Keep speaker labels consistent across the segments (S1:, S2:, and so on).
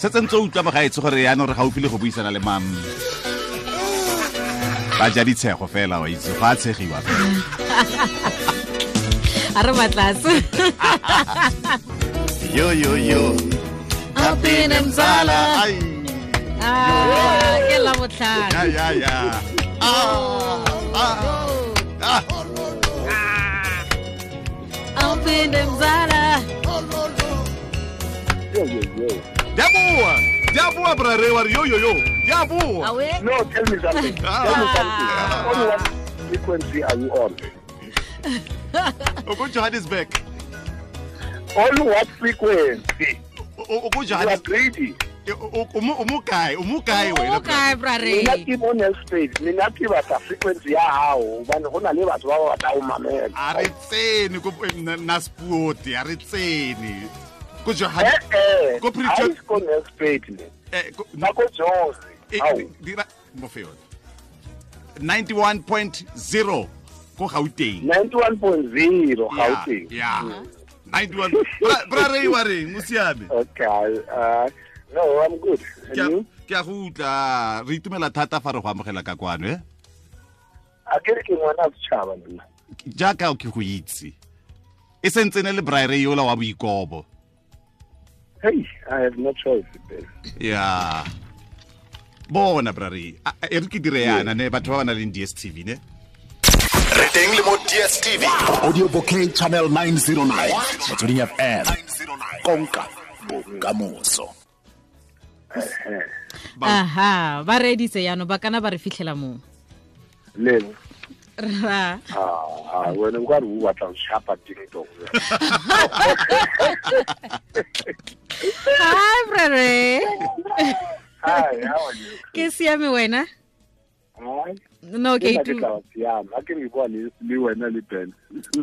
S1: Setse ntse o utlwa mogaetsho gore yaanong re gaufi le go buisana le mam. Ba ja ditshego fela wa itse, go a tshegiwa fela.
S2: A re batlatse.
S1: Yo yo yo.
S2: Apine mzala.
S1: Ai.
S2: Ah, ke la botlhano.
S1: Ya ya ya. Ah. Ah. Ah.
S2: Apine mzala.
S3: Yo, yo, yo.
S1: Di a boa. Di a boa, bra Ray, wa re yo yo yo. Di a boa.
S2: Awe.
S3: No, tell me something. Tell me something. On what frequency are you on?
S1: O ko Johannesburg.
S3: On what frequency?
S1: O ko
S3: You are
S1: Johannesburg.
S3: greedy.
S1: O mo kae? O mo kae wena?
S2: O kae, bra Ray?
S3: Nna ke mo Nelspruit. Nna ke batla frequency ya hao hobane ho na le batho ba ba batlang ho mamela.
S1: A re tsene ko Naspuoti, a re tsene. Ko Johannes-
S3: Eh, eh.
S1: Ko Pretoria-
S3: Ha e se ko Nelspruit le.
S1: Ko-
S3: Ba ko Jozi. Hao.
S1: Dira mo fe yone. 91.0 ko Gauteng.
S3: 91.0 Gauteng.
S1: Yeah. 91. Bra Ray wa reng? O siame?
S3: Okay. No, I'm good. And you?
S1: Ke a go utlwa. Re itumela thata fa re go amogela ka kwano, eh?
S3: A ke re ke ngwana wa setjhaba nna.
S1: Jaaka ke go itse. E sentse ne le Bra Ray yola wa boikobo.
S3: Hey, I have no choice, Ben.
S1: Yeah. Bona Bra Ray, e re ke dire yana ne batho ba ba nang le DStv ne.
S4: Re teng le mo DStv.
S5: Audio Bouquet Channel 909. Motsweding FM. Konka bokamoso.
S2: Aha, ba reeditse jaanong, ba kana ba re fitlhela moo.
S3: Lebo.
S2: Ra.
S3: Ah, wena o ka re o batla ho shapa ding dong.
S2: Hi, Bra Ray.
S3: Hi, how are you?
S2: Ke siame wena?
S3: Hi.
S2: No, ke
S3: Ke nna ke
S2: itu-
S3: tla ba siama. Ha ke re bua le wena le Ben.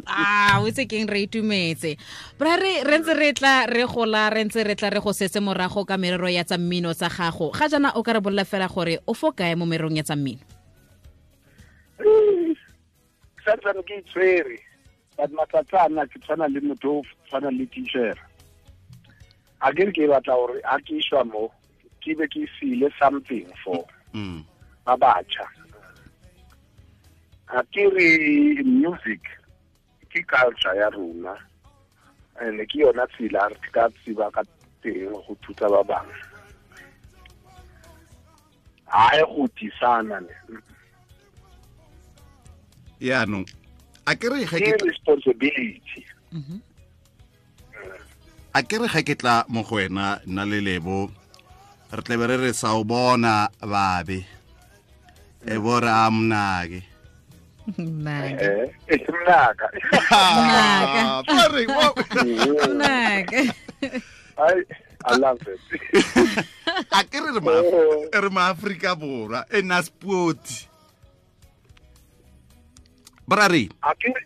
S2: Ah, o itse keng, re itumetse. Bra Ray, re ntse re tla re gola, re ntse re tla re go setse morago ka merero ya tsa mmino tsa gago. Ga jaana o ka re bolela fela gore o fo kae mo mererong ya tsa mmino?
S3: Santsane ke itshwere, but matsatsi ana ke tshwana le motho o tshwana le teacher. A ke re ke batla hore ha ke iswa mo, ke be ke siile something for ba batjha. A ke re music ke culture ya rona, and ke yona tsela re ka tseba ka teng go thuta ba bangwe. Ha e go tisana ne.
S1: Yaanong, a ke re ga ke
S3: Ke responsibility.
S1: A ke re ga ke tla mo go wena nna le Lebo, re tle be re re sa o bona babe. E bo re a mnake.
S2: Mnake.
S3: E mnaka.
S2: Mnaka.
S1: Ba re, wa-
S2: Mnaka.
S3: I love it.
S1: A ke re re ma Afrika Borwa e Naspuoti. Bra Ray.
S3: A ke re,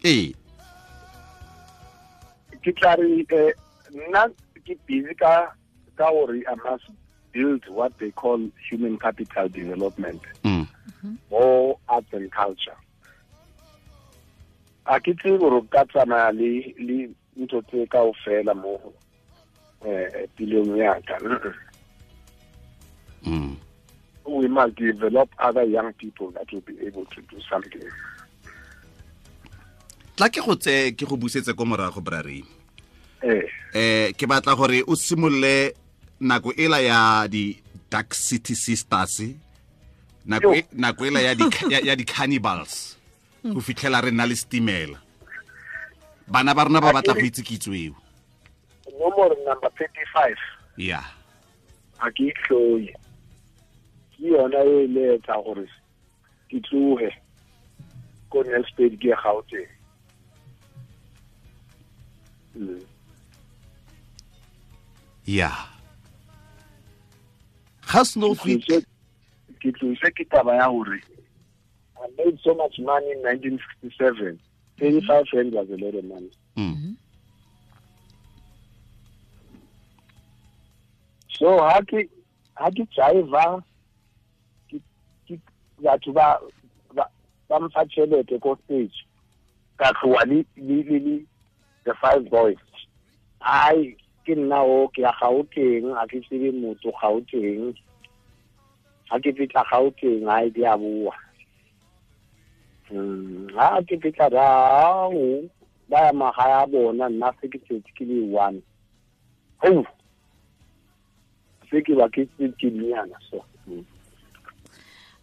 S1: Ee.
S3: Ke tla re, nna ke busy ka hore I must build what they call human capital development. More arts and culture. A ke tsebe hore o ka tsamaya le ntho tse kaofela mo, pilong ya ka. We must develop other young people that will be able to do something.
S1: Tla ke go tse ke go busetse ko morago, Bra Ray. Ke batla gore o simolole nako ela ya di Dark City Sisters, nako ela ya di cannibals, go fitlhela re nna le stimela. Bana ba rona ba batla go itse kitso eo.
S3: Nomoro number 35.
S1: Yeah.
S3: A ke itlhoye. Ke yona e le etsa gore ke tlohe ko Nelspruit ke ye Gauteng.
S1: Yeah. Ga snow fit.
S3: Ke tlose ke taba ya hore I made so much money in 1967. 35 rand was a lot of money. So ha ke jive ke batho ba mfa tjhelete ko stage. Ka tloha le the five boys. Ai Ke nna o ke ya Gauteng, a ke tsebe motho Gauteng. Ha ke fihla Gauteng ha e di a boa. Ha ke fihla rao ba ya magae a bona, nna se ke tsetse ke le one. Ho se ke ba ke ke nyana so. Bo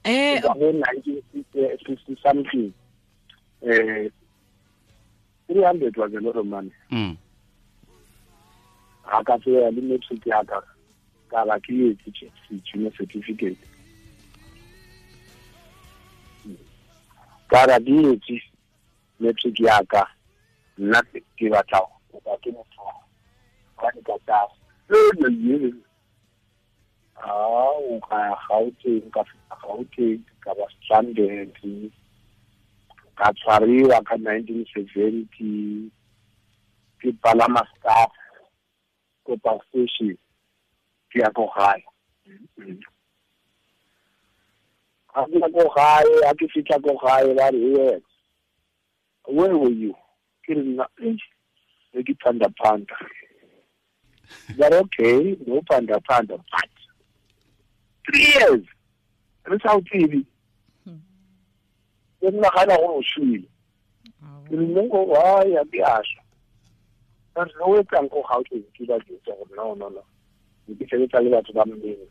S3: 1960 something. 300 was a lot of money. Ha ka tseya le matric ya ka ka ba ke etse junior certificate. Ka ra di etse matric ya ka, nna ke batla go ba ke motho wa di ka tsa le o ka Gauteng, ka fihla Gauteng ka ba stranded, ka tshwariwa ka 1970 ke palama staff ko park station ke ya ko gae. Ha ke ya ko gae, ha ke fihla ko gae ba re, yes, where were you? Ke re nna ke phanda phanda. But okay, no phanda phanda, but 3 years re sa o tsebe. Ke nagana gore o shwele. Ke re nko wa ya ke a shwa. Ba re o etsang ko Gauteng ke ba jwetsa gore no no no. Ke sebetsa le batho ba mmeng.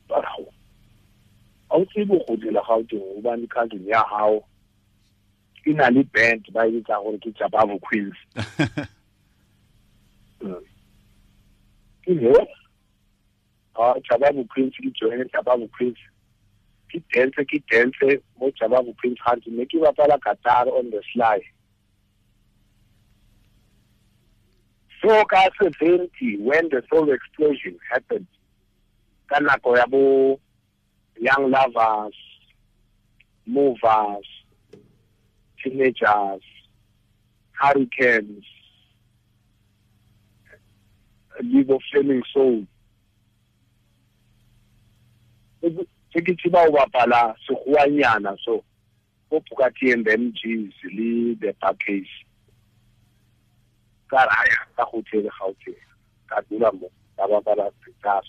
S3: Ba re ha o tsebe go dira Gauteng hobane cousin ya hao e na le band ba e bitsa gore ke Jabavu Queens. Ke he Jabavu Queens ke join Jabavu Queens. Ke dance mo Jabavu Queens hantle ne ke bapala guitar on the sly. So ka 70 when the soul explosion happened, ka nako ya bo Young Lovers, Movers, Teenagers, Hurricanes, Live of Flaming Soul. Se ke tseba ho bapala sekgowanyana so ko Bukati and MGs le the package. Ka raya ka go tsebe Gauteng, ka dula mo ka bapala guitar.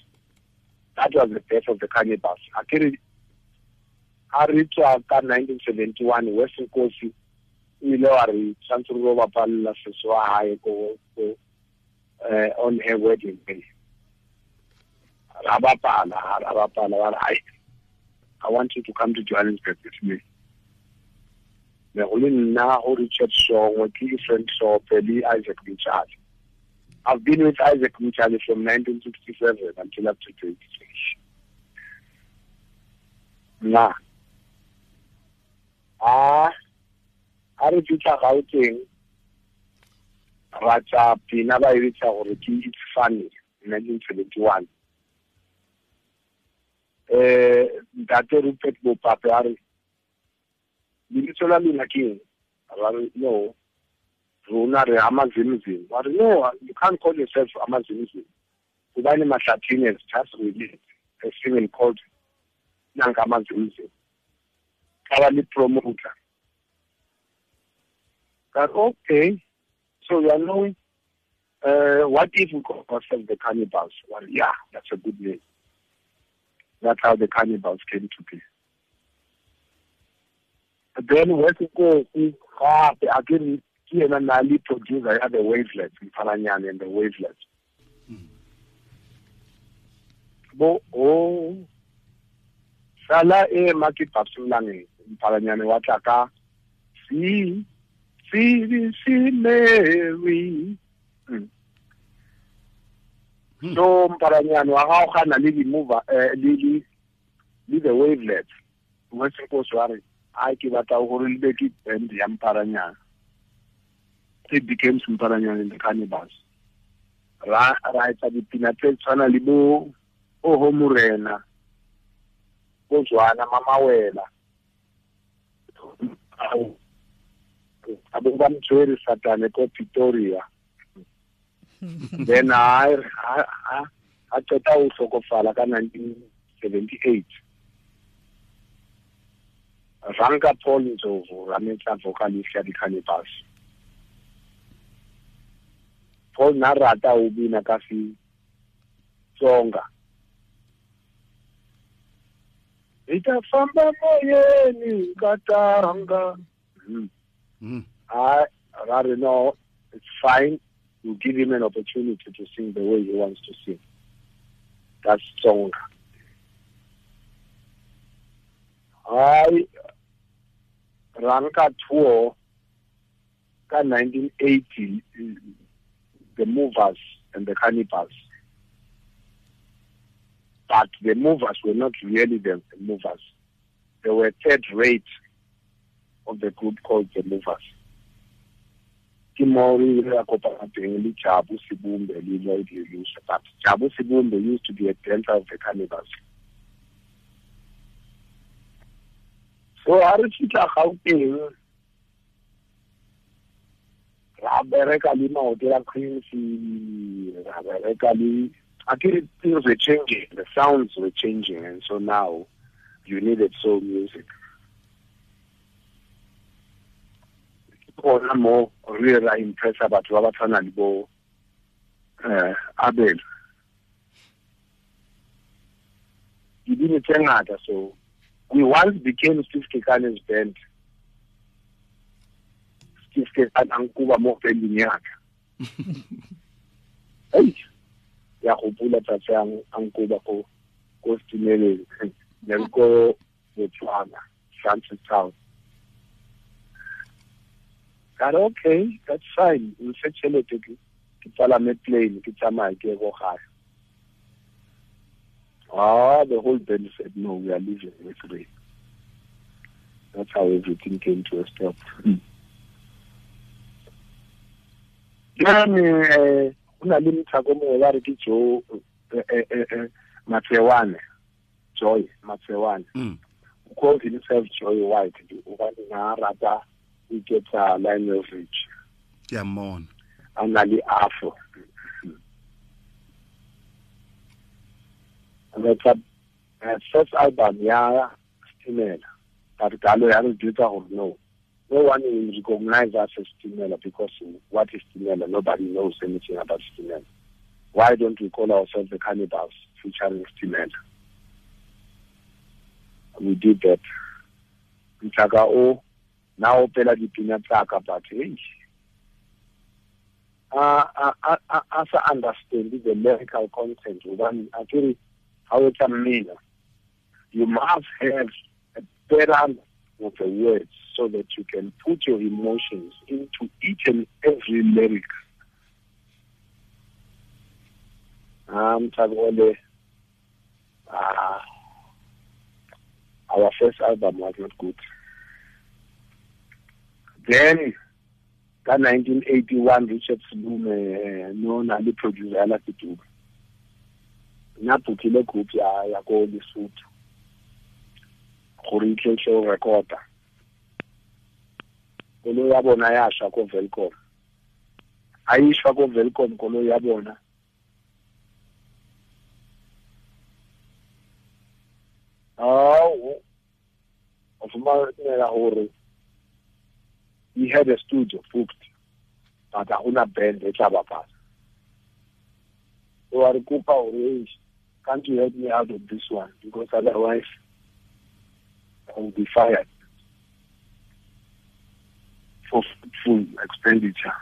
S3: That was the birth of the Cannibals. Akere ha re tswa ka 1971 West Nkosi o ile wa re tshwanetse re bapalla seso wa hae ko on her wedding day. Ra bapala ba re, I want you to come to Johannesburg with me. Me go le nna go Richard Shongwe, ke Frank Sope le Isaac Mtshali. I've been with Isaac Mtshali from 1967 until up to date. Na a re fihla Gauteng ra tsa pina ba e bitsa gore ke It's Funny 1971. Ntate Rupert Bopape a re lebitso la lona ke eng? Ra re no, rona re Amazimzim. Ba re no, you can't call yourself Amazimzim hobane Mahlathini has just released a single called Nanka Amazimzim. Ka ba le promoter. Ka okay, so you are knowing what if we call ourselves the Cannibals? Well, yeah, that's a good name. That's how the Cannibals came to be. Then West Nkosi gape a ke yena na le producer ya the Wavelets, Mphalanyane and the Wavelets. Bo o sala e ma ke Babs Mphalanyane wa tla ka C C C Mary. So Mphalanyane wa gaogana le di mover le the Wavelets. West Nkosi wa re a ke batla gore le be ke band ya Mphalanyane. It became Mphalanyane and the Cannibals. Ra etsa dipina tse tshwana le bo Oho Morena, bo Jwana Mamawela, a bo ba mtshwere Satane ko Pretoria. Then a qeta ho hlokofala ka 1978. Ranka Paul Ndlovu ra metsa vocalist ya di-Cannibals. Paul na rata o bina ka Xitsonga. Ita famba moyeni katanga. I rather know it's fine. You give him an opportunity to sing the way he wants to sing. That's song. I ranka tour ka 1980, the Movers and the Cannibals. But the Movers were not really the Movers. They were third rate of the group called the Movers. Ke mo re ile ra kopana teng le Jabu Sibumbe le Lloyd Lelusha. But Jabu Sibumbe used to be a dancer of the Cannibals. So ha re fihla Gauteng, ra bereka le maoto a Quincy, ra bereka le akere things were changing, the sounds were changing, and so now you needed soul music. Gona mo re ra impressa batho ba ba tshwana le bo Abel. Dibini tse ngata. So we once became Steve Kekane's band. Steve Kekane a nkuba mo banding ya ka. Ei, ya gopola tsatsi a nkuba ko Stimeleng, ne re ko Botswana, Francistown. Ka re okay, that's fine. Mfe tšhelete ke palame plane ke tsamaye ke ye ko gae. The whole band said, no, we are leaving with Ray. That's how everything came to a stop. Then, ho na le mothako mongwe ba re ke Joe Matsewane, Joy Matsewane. Who called himself Joy White. Hobane na rata o iketsa Lionel Richie.
S1: Ke a mmona.
S3: A na le afro. That's a first album ya Stimela. But Galo ya re jwetsa gore no one will recognize us as Stimela, because what is Stimela? Nobody knows anything about Stimela. Why don't we call ourselves the Cannibals featuring Stimela? We did that. Mthaka o na opela dipina tsaka, but hey, I understand the lyrical content. Hobane akere ha o etsa mmino, you must have a better understanding of the words so that you can put your emotions into each and every lyric. Our first album was not good. Then, ka 1981, Richard Sulume, no na le producer ya Latuba. Na bookile group ya ko Lesotho gore e tle tle recorda. Koloi ya bona ya shwa ko Welkom. A e shwa ko Welkom koloi ya bona. O fumanela hore he had a studio booked, but ha hona band e tla bapala. So a re kopa hore, can't you help me out of this one? Because otherwise I will be fired for full expenditure.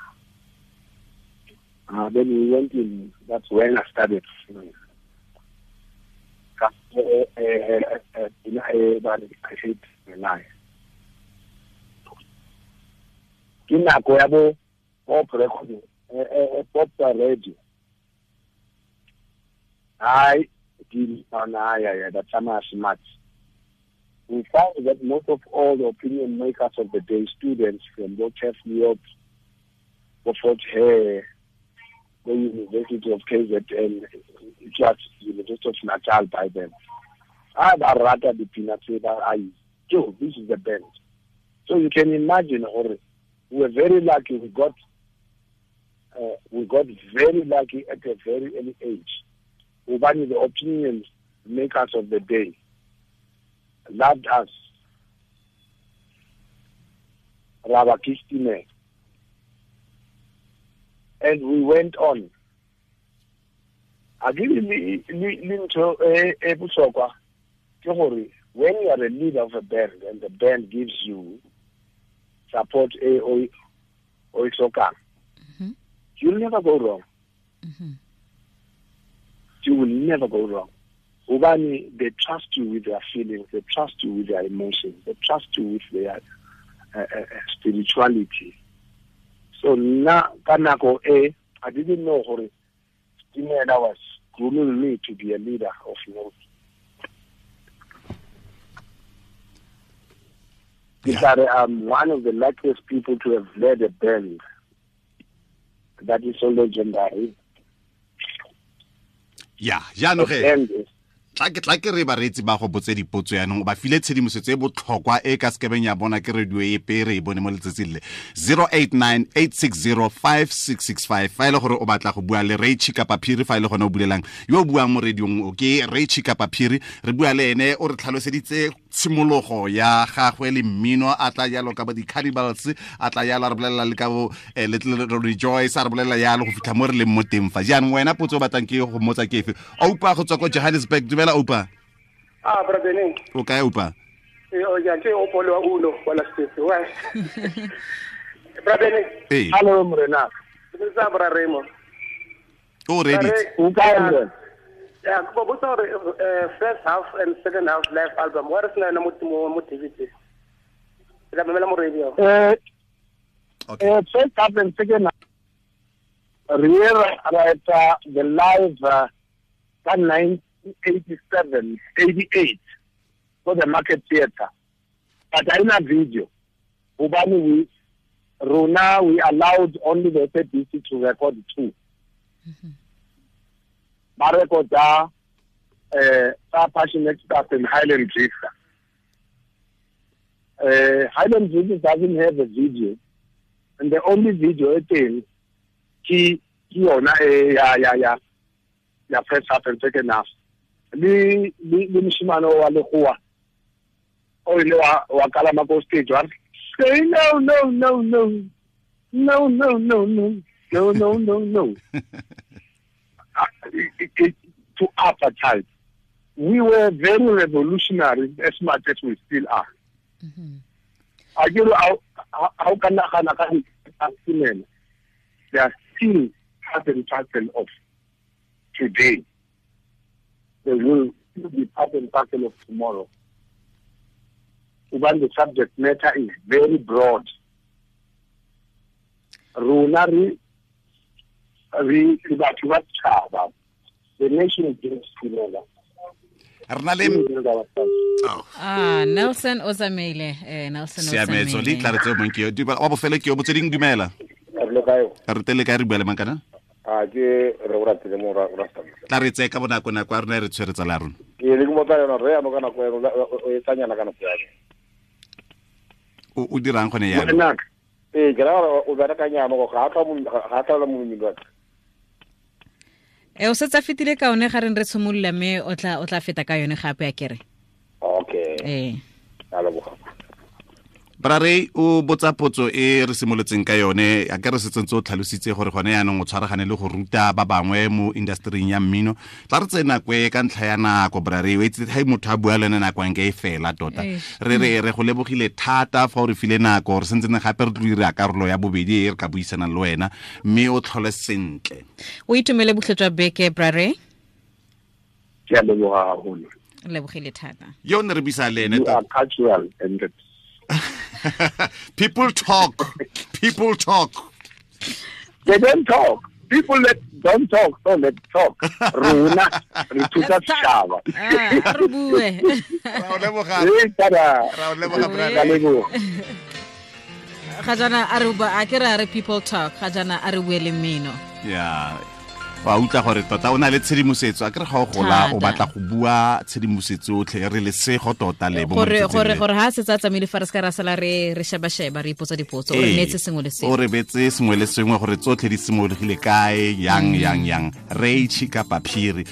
S3: Then we went in. That's when I started. Ke nako ya bo pop recording, pop radio. I did that smart. We found that most of all the opinion makers of the day, students from Bochef New Fort Hare, the University of KZN, just University of Natal by then. I rather the Joe, this is the band. So you can imagine, or we were very lucky. We got very lucky at a very early age. Ubani, the opinion makers of the day, loved us. Rabakistime. And we went on. A ke le ntho e bohlokwa ke gore when you are a leader of a band and the band gives you support e o e hlokang, you'll never go wrong. You will never go wrong. Hobane they trust you with their feelings, they trust you with their emotions, they trust you with their spirituality. So na ka nako e, I didn't know gore Stimela was grooming me to be a leader of note. Yeah. I'm one of the luckiest people to have led a band that is so legendary.
S1: Yeah, jaanong ge tla ke re bareetsi ba go botse dipotso yaanong ba file tshedimosetso e botlhokwa e ka sekebeng ya bona ke radio e pe re e bone mo letsatsing le 0898605665 fa e le gore o batla go bua le Ray Chikapa Phiri, fa e le gone o bulelang yo o buang mo radiong o ke Ray Chikapa Phiri, re bua le ene o re tlhaloseditse tshimologo ya gagwe le mmino, a tla jalo ka bo di-Cannibals, a tla jalo a re bolelela le ka bo Little Rejoice, a re bolelela jalo go fitlha mo re leng mo teng fa. Jaanong wena potso o batlang ke go mmotsa ke efe? Oupa go tswa ko Johannesburg, dumela Oupa.
S6: Ah, brother Neng.
S1: O kae Oupa?
S6: O ya ke Opolo wa Uno wa la State. Wa. Brother Neng.
S1: Hey.
S3: Hello morena.
S6: Ke tsa bra Remo.
S1: O ready?
S3: O kae morena?
S6: Yeah, go botsa gore first half and second half live album wa re sena mo mo DVD. Ke mamela mo radio.
S1: Okay.
S3: First half and second half re ra the live ka 1987, 88 for the Market Theatre. But in a video, hobane we rona we allowed only the SABC to record two. Ba recorda Passionate Stuff and Highland Drifter. Highland Drifter doesn't have a video, and the only video e teng ke yona e ya ya first half and second half. Le moshimane wa lekgowa o ile wa kalama ko stage wa say no no no no no no no no no no no no. To apartheid. We were very revolutionary as much as we still are. I get how can they are still part and parcel of today. They will still be part and parcel of tomorrow. Even the subject matter is very broad. Rona re batho ba setšhaba, the nation is together.
S2: Nelson o tsamaile, Nelson o tsamaile.
S1: Siametso le tla re tseo mong ke yo. Wa bofelo ke yo botsweding, dumela. Re tele kae re bua le mang kana?
S7: A ke re o ratile mo ra
S1: tla re tseye ka bonako nako ya rona e re tshwere tsala ya rona.
S7: Ke le ke motsa yona re ano ka nako ya o e tsanyana ka nako ya.
S1: O dirang gone yana?
S7: Ee, ke ra gore o bereka nyana go ga tla mo mmino wa ka.
S2: O setse a fetile ka one ga reng re tshimolola mme o tla feta ka yone gape a kere.
S7: Okay. A leboga.
S1: Bra Ray o botsa potso e re simolotseng ka yone, a ke re setse ntse o tlhalositse gore gone yaanong o tshwaragane le go ruta ba bangwe mo industry ya mmino. Tla re tsena nako e ka ntlha ya nako Bra Ray, o itse ha motho a bua le ene nako nke e fela tota. Re re go lebogile thata fa o re file nako, re sentse gape re tlo dira karolo ya bobedi e re ka buisanang le wena, mme o tlhole sentle.
S2: O itumele botlhe jwa beke Bra Ray.
S3: Ke a leboga haholo.
S2: Lebogile thata.
S1: Yo ne re buisa le ene
S3: You are cultural and
S1: People talk. People talk.
S3: They don't talk. People that don't talk, so let's talk. Rona re thusa setšhaba.
S2: Re bue.
S1: Ra o leboga. Ra o leboga brother.
S2: Ga jana a re ba a ke re people talk, ga jana a re bue le mmino.
S1: Yeah. Wa utlwa gore tota o na le tshedimosetso, a ke re ga o gola o batla go bua tshedimosetso otlhe, re lesego tota le bo
S2: gore gore gore ha se tsa tsamaile fa re se ka ra sala re sheba sheba re ipotsa dipotso, o re neetse sengwe le sengwe,
S1: o re betse sengwe le sengwe gore tsotlhe di simologile kae, yang yang yang. Ray Chikapa Phiri.